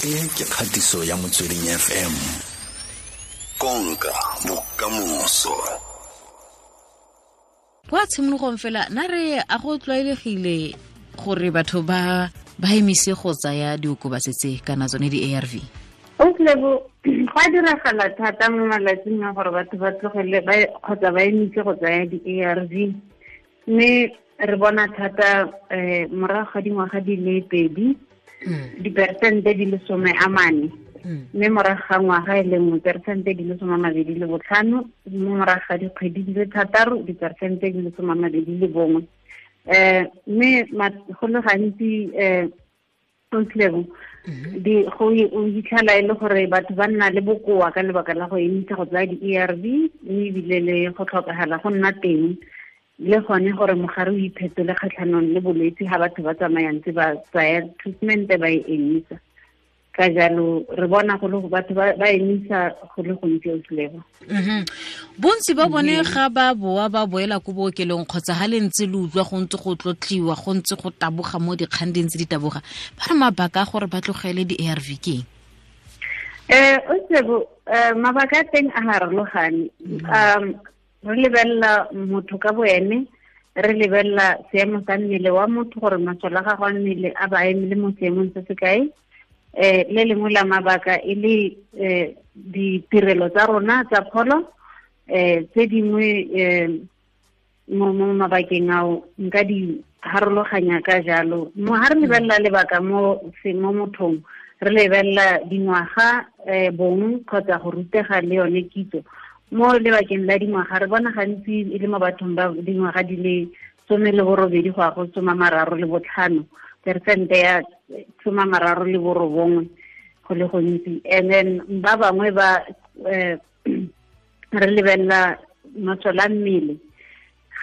E ke kgatiso ya Motsweding FM. Konka bokamoso. Kwa tshimologong fela na re a go tlwaelegile gore batho ba emise go tsaya diokobatsi tse kana tsone di-ARV? Oslebo, go a diragala thata mo malatsing a gore batho ba tlogele kgotsa ba emise go tsaya di-ARV, mme re bona thata morago ga dingwaga di le 2 diperesente di le 40, mme morago ga ngwaga e le nngwe peresente di le 25, mme morago ga dikgwedi di le 6 diperesente di le 21. Mme go le gantsi Oslebo, go hitlhela e le gore batho ba nna le bokoa ka lebaka la go emisa go tsaya di-ARV, mme ebile le go tlhokagala go nna teng le gone gore mogare o iphetole kgatlhanong le bolwetse ga batho ba tsamayang tse ba tsaya treatment ba e emisa. Ka jalo re bona go le batho ba emisa go le gontsi Oslebo. Bontsi ba bone ga ba boa ba boela ko bookelong kgotsa ga le ntse le utlwa go ntse go tlotliwa, go ntse go taboga mo dikgang di ntse di taboga, ba re mabaka a gore ba tlogele di-ARV ke eng? Oslebo, mabaka a teng a harologane. Re lebelela motho ka boene, re lebelela seemo sa mmele wa motho gore masole a gagwe a mmele a ba emele mo seemong se se kae. Le lengwe la mabaka e le ditirelo tsa rona tsa pholo, tse dingwe mo mabakeng ao nka di harologanya ka jalo. Mo ha re lebelela lebaka mo mothong, re lebelela dingwaga, bong kgotsa go rutega le yone kitso. Mo lebakeng la dingwaga re bona gantsi e le mo bathong ba dingwaga di le 18 go ya go 35, peresente ya 39 go le gontsi. And then ba bangwe ba re lebelela masole a mmele.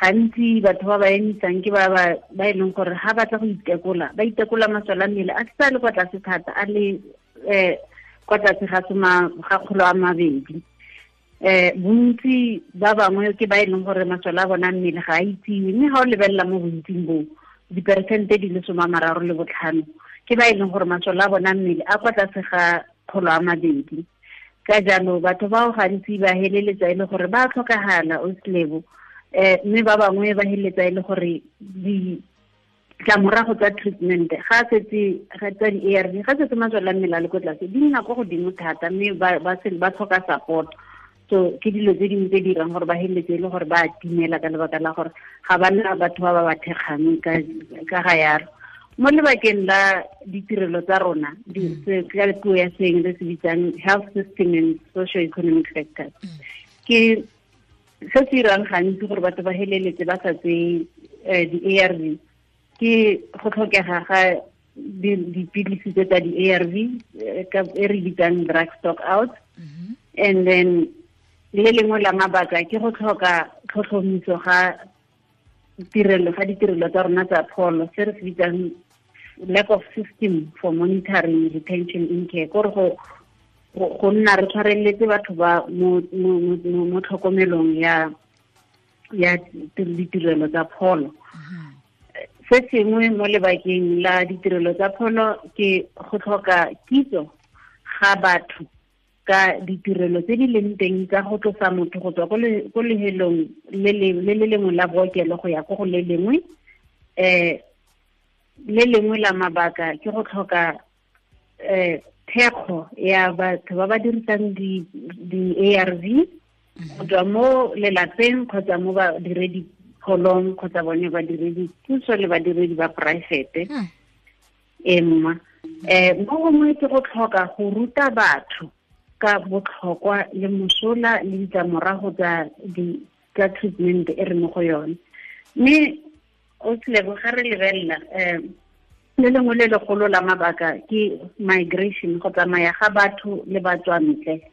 Gantsi batho ba ba emisang ke ba e leng gore ga batla go itekola, ba itekola masole a mmele a sa le kwa tlase thata, a le kwa tlase ga 200. Bontsi ba bangwe ke ba e leng gore masole a bona mmele ga a itsiwe, mme ga o lebelela mo bontsing boo diperesente di le 35 ke ba e leng gore masole a bona mmele a kwa tlase ga 200. Ka jalo batho bao gantsi ba heleletsa e le gore ba tlhokagala Oslebo, mme ba bangwe ba heleletsa e le gore ditlamorago tsa treatment ga setse ga tsa di-ARV ga setse masole a mmele a le ko tlase di nna kwa godimo thata, mme ba tlhoka support. So ke dilo tse dingwe tse dirang gore ba heleletse e le gore ba timela ka lebaka la gore ga ba nna batho ba ba thekgang ka ga yalo. Mo lebakeng la ditirelo tsa rona, ka puo ya seeng re se bitsang health system and socio-economic factors, ke se se dirang gantsi gore batho ba heleletse ba sa tseye di-ARV ke go tlhokega ga dipilisi tse tsa di-ARV e re bitsang drug stock out. And then le lengwe la mabaka ke go tlhoka tlhotlhomiso ga ditirelo tsa rona tsa pholo, se re se bitsang lack of system for monitoring retention in care, kore go nna re tshwareletse batho ba mo tlhokomelong ya ditirelo tsa pholo. Se sengwe mo lebakeng la ditirelo tsa pholo ke go tlhoka kitso ga batho ka ditirelo tse di leng teng tsa go tlosa motho go tswa ko lehelong le le lengwe la bookelo go ya ko go le lengwe. Le lengwe la mabaka ke go tlhoka thekgo ya batho ba ba dirisang di-ARV go tswa mo lelapeng kgotsa mo badiredi pholong kgotsa bone badiredi puso le badiredi ba poraefete. Mo gongwe ke go tlhoka go ruta batho ka botlhokwa le mosola le ditlamorago tsa treatment e re mo go yone. Mme Oslebo, ga re lebelela le lengwe le legolo la mabaka ke migration, go tsamaya ga batho le batswantle.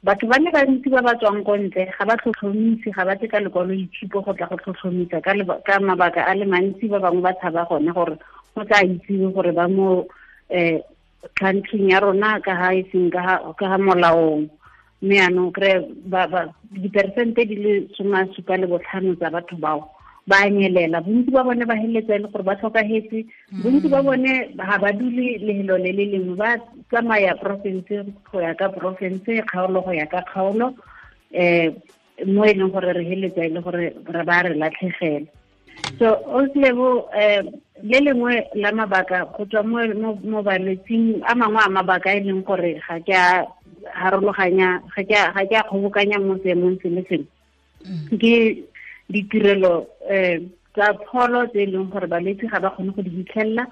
Batho ba le bantsi ba ba tswang ko ntle ga ba tlhotlhomise, ga ba tle ka lekwaloitshupo go tla go tlhotlhomisa ka mabaka a le mantsi. Ba bangwe ba tshaba gone gore go tla itsiwe gore ba mo country ya rona ka ha e seng ka ha molaong. Mme yanong kry diperesente di le 75 tsa batho bao Ba nyelela, bontsi ba bone ba heletsa e le gore ba tlhokahetse, bontsi ba bone ga ba dule lehelo le le lengwe, ba tsamaya porofense go ya ka porofense, kgaolo go ya ka kgaolo, mo e leng gore re heletsa e le gore re ba re latlhegela. So Ausi Lebo, le lengwe la mabaka go tswa mo balwetsing a mangwe a mabaka e leng gore ga ke a harologanya, ga ke a kgobokanya mo seemong se le sengwe, ke ditirelo tsa pholo tse e leng gore balwetse ga ba kgone go di fitlhelela,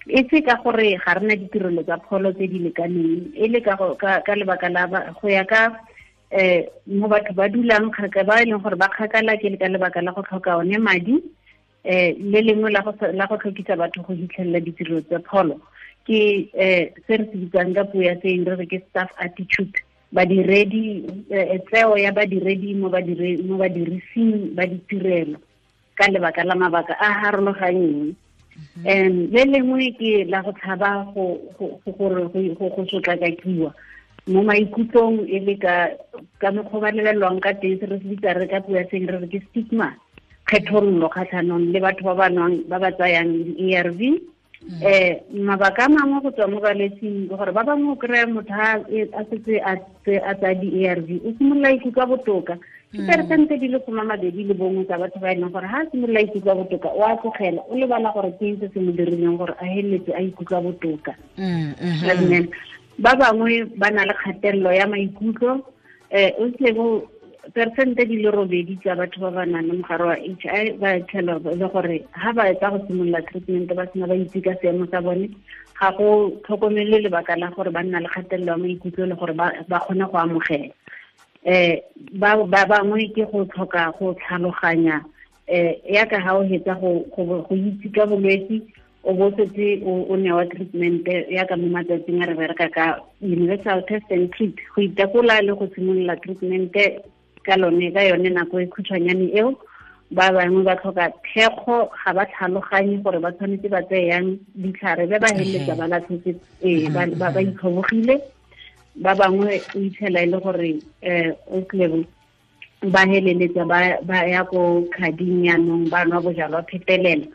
e se ka gore ga rena ditirelo tsa pholo tse di lekaneng, e le ka lebaka la go ya ka mo batho ba dulang kgakala, ba e leng gore ba kgakala, ke ka lebaka la go tlhoka one madi. Le lengwe la go tlhokisa batho go fitlhelela ditirelo tsa pholo ke se re se bitsang ka puo ya seeng re re ke staff attitude, badiredi, tseo ya badiredi mo badirising ba ditirelo ka lebaka la mabaka a harologanyeng. Le lengwe ke la go tshaba go sotlakakiwa mo maikutlong, e le ka mokgwa ba lebelelwang ka teng, se re se bitsa re ka puo ya seeng re re ke stigma, kgethololo kgatlhanong le batho ba ba nwang, ba ba tsayang di-ARV. Mabaka a mangwe go tswa mo balwetsing ke gore ba bangwe o kry-a motho a setse a tsaya di-ARV, o simolola ikutlwa botoka. Ke peresente di le 21 tsa batho ba e leng gore ha a simolola ikutlwa botoka o a tlogela, o lebala gore ke eng se se mo dirileng gore a heletse a ikutlwa botoka. Ba bangwe ba na le kgatelelo ya maikutlo, o tlebo peresente di le 8 tsa batho ba ba nang le mogare wa HIV ba tlhela le gore ha ba etsa go simolola treatment ba sena ba itse ka seemo sa bone, ga go tlhokomele lebaka la gore ba nna le kgatelelo ya maikutlo le gore ba kgone go amogela. Ba bangwe ke go tlhoka go tlhaloganya, yaka ha o hetsa go itse ka bolwetse, o bo setse o newa treatment yaka mo matsatsing a re bereka ka universal test and treat, go itekola le go simolola treatment ka lone ka yone nako e khutshwanyane eo. Ba bangwe ba tlhoka thekgo, ga ba tlhaloganye gore ba tshwanetse ba tseye yang ditlhare, be ba heleletsa ba latlhetse, ba itlhobogile. Ba bangwe o itlhela e le gore o tlebo ba heleletsa ba ya ko khading yanong, ba nwa bojalwa phetelela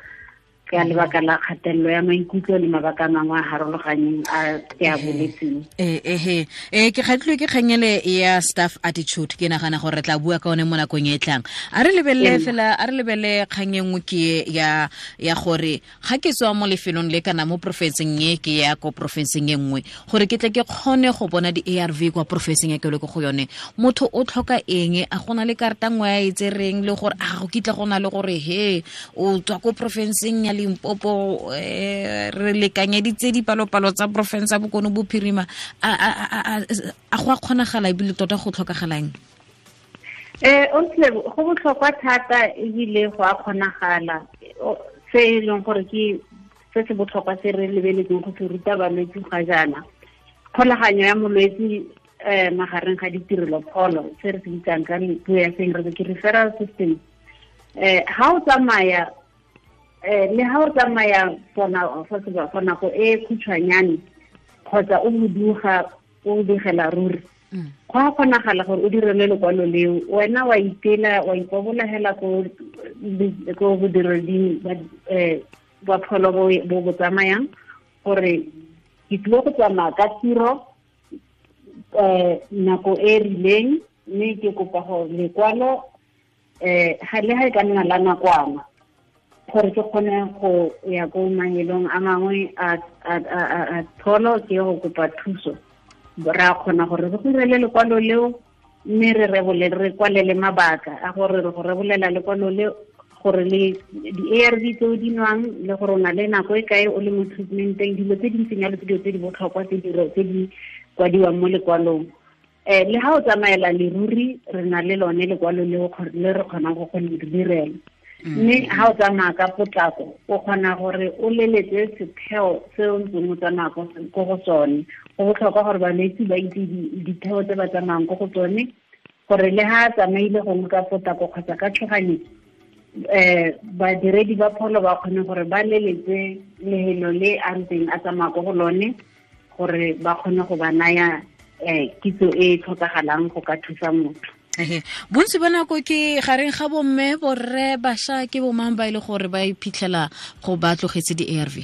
ka lebaka la kgatelelo ya maikutlo le mabaka a mangwe a harologanyeng a ke a boletseng. Ke kgatlhilwe ke kgangele ya staff attitude, ke nagana gore re tla bua ka one mo nakong e tlang. A re lebelele fela, a re lebelele kgang e nngwe ke ya gore ga ke tswa mo lefelong le kana mo porofenseng e ke ya ko porofenseng e nngwe, gore ke tle ke kgone go bona di-ARV kwa porofenseng e ke le ko go yone, motho o tlhoka eng? A gona le karata nngwe a e tsereng le gore a go kitla go na le gore he o tswa ko porofenseng ya Limpopo, re lekanyeditse dipalopalo tsa porofense ya Bokone Bophirima, a go a kgonagala ebile tota go tlhokagalang? Go botlhokwa thata ebile go a kgonagala. Se e leng gore ke se se botlhokwa se re lebeletseng go se ruta balwetse ga jaana, kgolaganyo ya molwetse magareng ga ditirelo pholo, se re se bitsang ka puo ya seeng re ke referral system. Ha o tsamaya le ha o tsamaya for nako e khutshwanyane kgotsa o boduga o digela ruri, go a kgonagala gore o direle lekwalo leo, wena wa itela wa ipobolagela ko bodireding ba pholo bo bo tsamayang gore ke tlile go tsamaya ka tiro nako e rileng, mme ke kopa gore lekwalo ga le ha e ka nna la nakwana gore ke kgone go ya ko mahelong a mangwe a pholo ke go kopa thuso. Ra kgona gore re go direle lekwalo leo, mme re rebole re kwalele mabaka a gore re go rebolela lekwalo leo gore le di-ARV tse o di nwang le gore o na le nako e kae o le mo treatmenteng, dilo tse di ntseng jalo ke dilo tse di botlhokwa tse di kwadiwang mo lekwalong. Le ha o tsamaela leruri re na le lone lekwalo leo le re kgonang go le direla. Mme ha o tsamaya ka potlako o kgona gore o leletse setheo se o ntseng o tsamaya ko go sone. Go botlhokwa gore balwetse ba itse ditheo tse ba tsamayang ko go tsone, gore le ha a tsamaile gongwe ka potlako kgotsa ka tshoganyetso, badiredi ba pholo ba kgone gore ba leletse lehelo le a ntseng a tsamaya ko go lone, gore ba kgone go ba naya kitso e tlhokagalang go ka thusa motho. Bontsi ba nako ke gareng ga bomme, borre, bašwa, ke bomang ba e le gore ba iphitlhela go ba tlogetse di-ARV?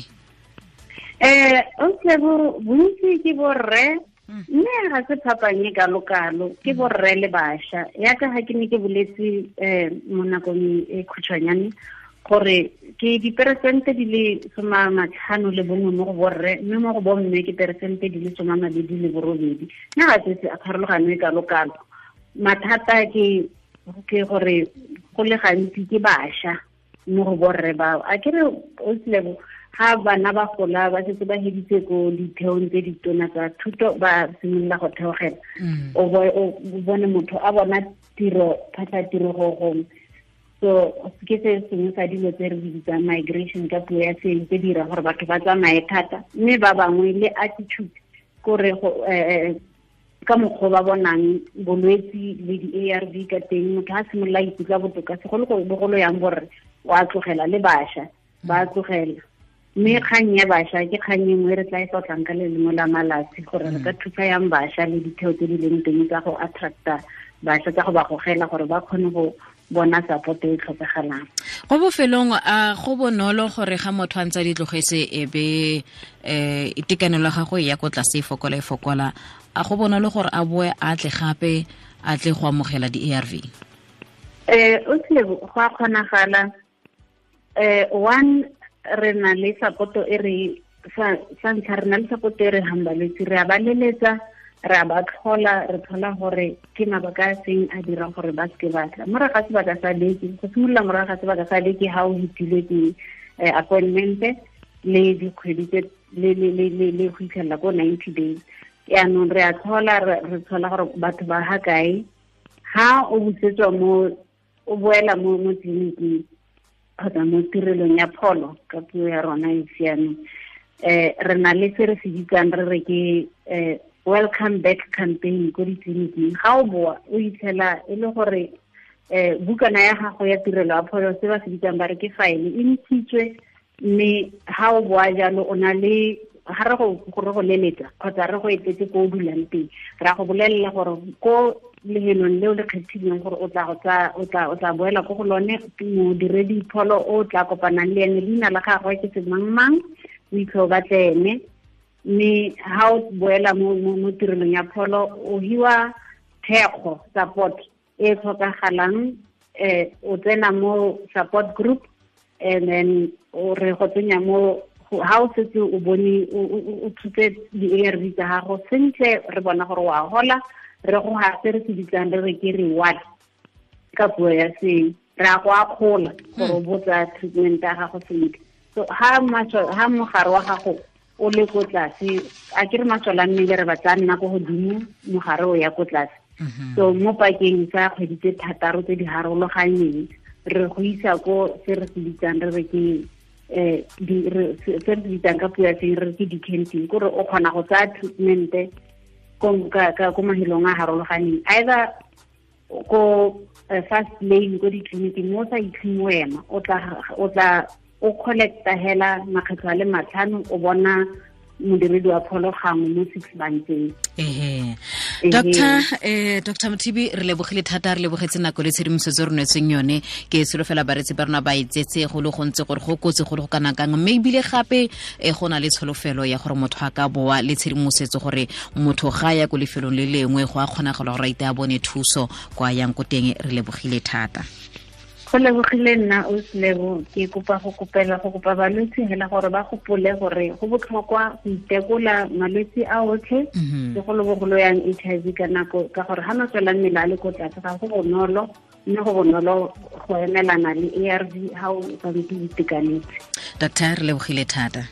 Okay, bontsi ke borre, mme ga se phapang e kalo-kalo, ke borre le bašwa. Yaka ga ke ne ke boletse mo nakong e khutshwanyane gore ke diperesente di le 51 mo go borre, mme mo go bomme ke peresente di le 28. Mme ga se pharologano e kalo-kalo. Mathata ke gore go le gantsi ke bašwa mo go borre bao. A ke re o tlebo ga bana ba gola ba setse ba heditse ko ditheong tse ditona tsa thuto, ba simolola go theogela. O bone motho a bona tiro, phatla tiro go gongwe. So ke se sengwe sa dilo tse re di bitsang migration ka puo ya seeng, tse di dirang gore batho ba tsamaye thata, mme ba bangwe le attitude kore ka mokgwa ba bonang bolwetsi le di-ARV ka teng, motho a simolola ikutlwa botoka, segolobogolo yang borre o a tlogela, le bašwa ba tlogela. Mme kgang ya bašwa ke kgang e nngwe re tla e tlotlang ka le lengwe la malatsi, gore re ka thusa yang bašwa le ditheo tse di leng teng tsa go attracta bašwa, tsa go ba gogela gore ba kgone go bona support e tlhokagalang. Go bofelong, a go bonolo gore ga motho a ntse a di tlogetse e be itekanelo ya gagwe ya ko tlase e fokola e fokola, a go bonolo gore a boe a tle gape a tle go amogela di-ARV? O tlile go a kgonagala. One, re na le support e re sa ntlha re na le support e re hang balwetse, re a ba leletsa, re a ba tlhola, re tlhola gore ke mabaka a seng a dirang gore ba seke ba tla. Morago ga sebaka sa beke, go simolola morago ga sebaka sa beke ha o hitilwe ke appointment le dikgwedi tse le go fitlhelela ko 90 days. Yaanong re a tlhola, re tlhola gore batho ba ha kae. Ha o busetswa mo, o boela mo tleliniking kgotsa mo tirelong ya pholo ka puo ya rona e siameng, re na le se re se bitsang re re ke welcome back campaign ko ditleliniking. Ga o boa o itlhela e le gore bukana ya gago ya tirelo ya pholo, se ba se bitsang ba re ke file, e ntshitswe, mme ha o boa jalo o na le ga re go leletsa kgotsa re go etetse ko o dulang teng, ra go bolelela gore ko lehelong leo le kgethileng gore o tla boela ko go lone, modiredi pholo o tla kopanang le ene, leina la gagwe ke semangmang, o itlhe o batle ene. Mme ha o boela mo tirelong ya pholo, o hiwa thekgo, support e tlhokagalang, o tsena mo support group, and then o re go tsenya mo ha o setse o bone o thutse di-ARV tsa gago sentle, re bona gore wa hola, re go ha se re se bitsang re re ke reward ka puo ya seeng, re a go akgola gore o botsa treatment ya gago sentle. So ha mogare wa gago o le ko tlase, a ke re masole a mmele re batla nna ko godimo, mogare o ya ko tlase. So mo pakeng tsa kgwedi tse 6 tse di harologanyeng, re go isa ko se re se bitsang re re ke se re se bitsang ka puo ya seeng re re ke decanting, kore o kgona go tsaya treatment ko mahelong a harologaneng, either ko fast lane ko ditleliniking mo o sa itlheng wena, o tla o collecta hela makgetlho a le 5, o bona modiredi wa pholo gangwe mo 6 months. Dr. Mothibi, re lebogile thata, re lebogetse nako le tshedimosetso re neetsweng yone. Ke solofela bareetsi ba rona ba itsetse go le gontsi gore go kotsi go le go kana kang, mme ebile gape go na le tsholofelo ya gore motho a ka boa le tshedimosetso gore motho ga ya ko lefelong le lengwe go a kgonagala gore a ite a bone thuso kwa yang ko teng. Re lebogile thata. Go lebogile nna o Selebo. Ke kopa go kopa balwetse hela gore ba gopole gore go botlhokwa go itekola malwetse a otlhe, segolobogolo yang HIV ka nako, ka gore ha masole a mmele a le ko tlase ga go bonolo, mme go bonolo go emelana le ARV ha o santse o itekanetse. Doctor, re lebogile thata.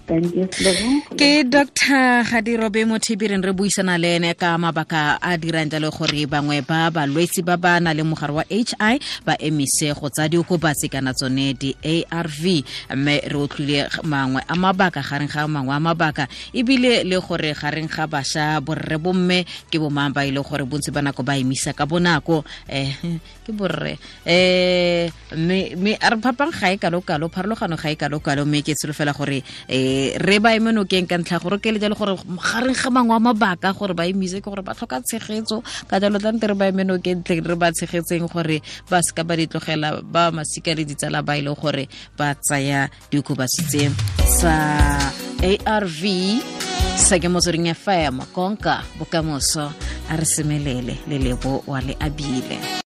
Ke Dr. Gadirobe Mothibi, re buisana le ene ka mabaka a dirang jalo gore bangwe ba balwetsi ba ba nang le mogare wa HI ba emise go tsa diokobatsi kana tsone di-ARV, mme re utlwile mangwe a mabaka gareng ga mangwe a mabaka, ebile le gore gareng ga bašwa borre bomme ke bomang ba ile gore bontsi ba nako ba emisa ka bonako, ke borre, mme a re phapang ga e kalo-kalo, pharologano ga e kalo-kalo, mme ke tsholofela gore Re ba eme nokeng ka ntlha gore ke le jalo gore gareng ga mangwe a mabaka gore ba emise ke gore ba tlhoka tshegetso, ka jalo tlante re ba eme nokeng tle re ba tshegetseng gore ba seka ba di tlogela ba masika le ditsala ba ile gore ba tsaya diokobatsi tse sa ARV. Sa ke Motsweding FM, konka bokamoso. A re semelele le Lebo wa le abile.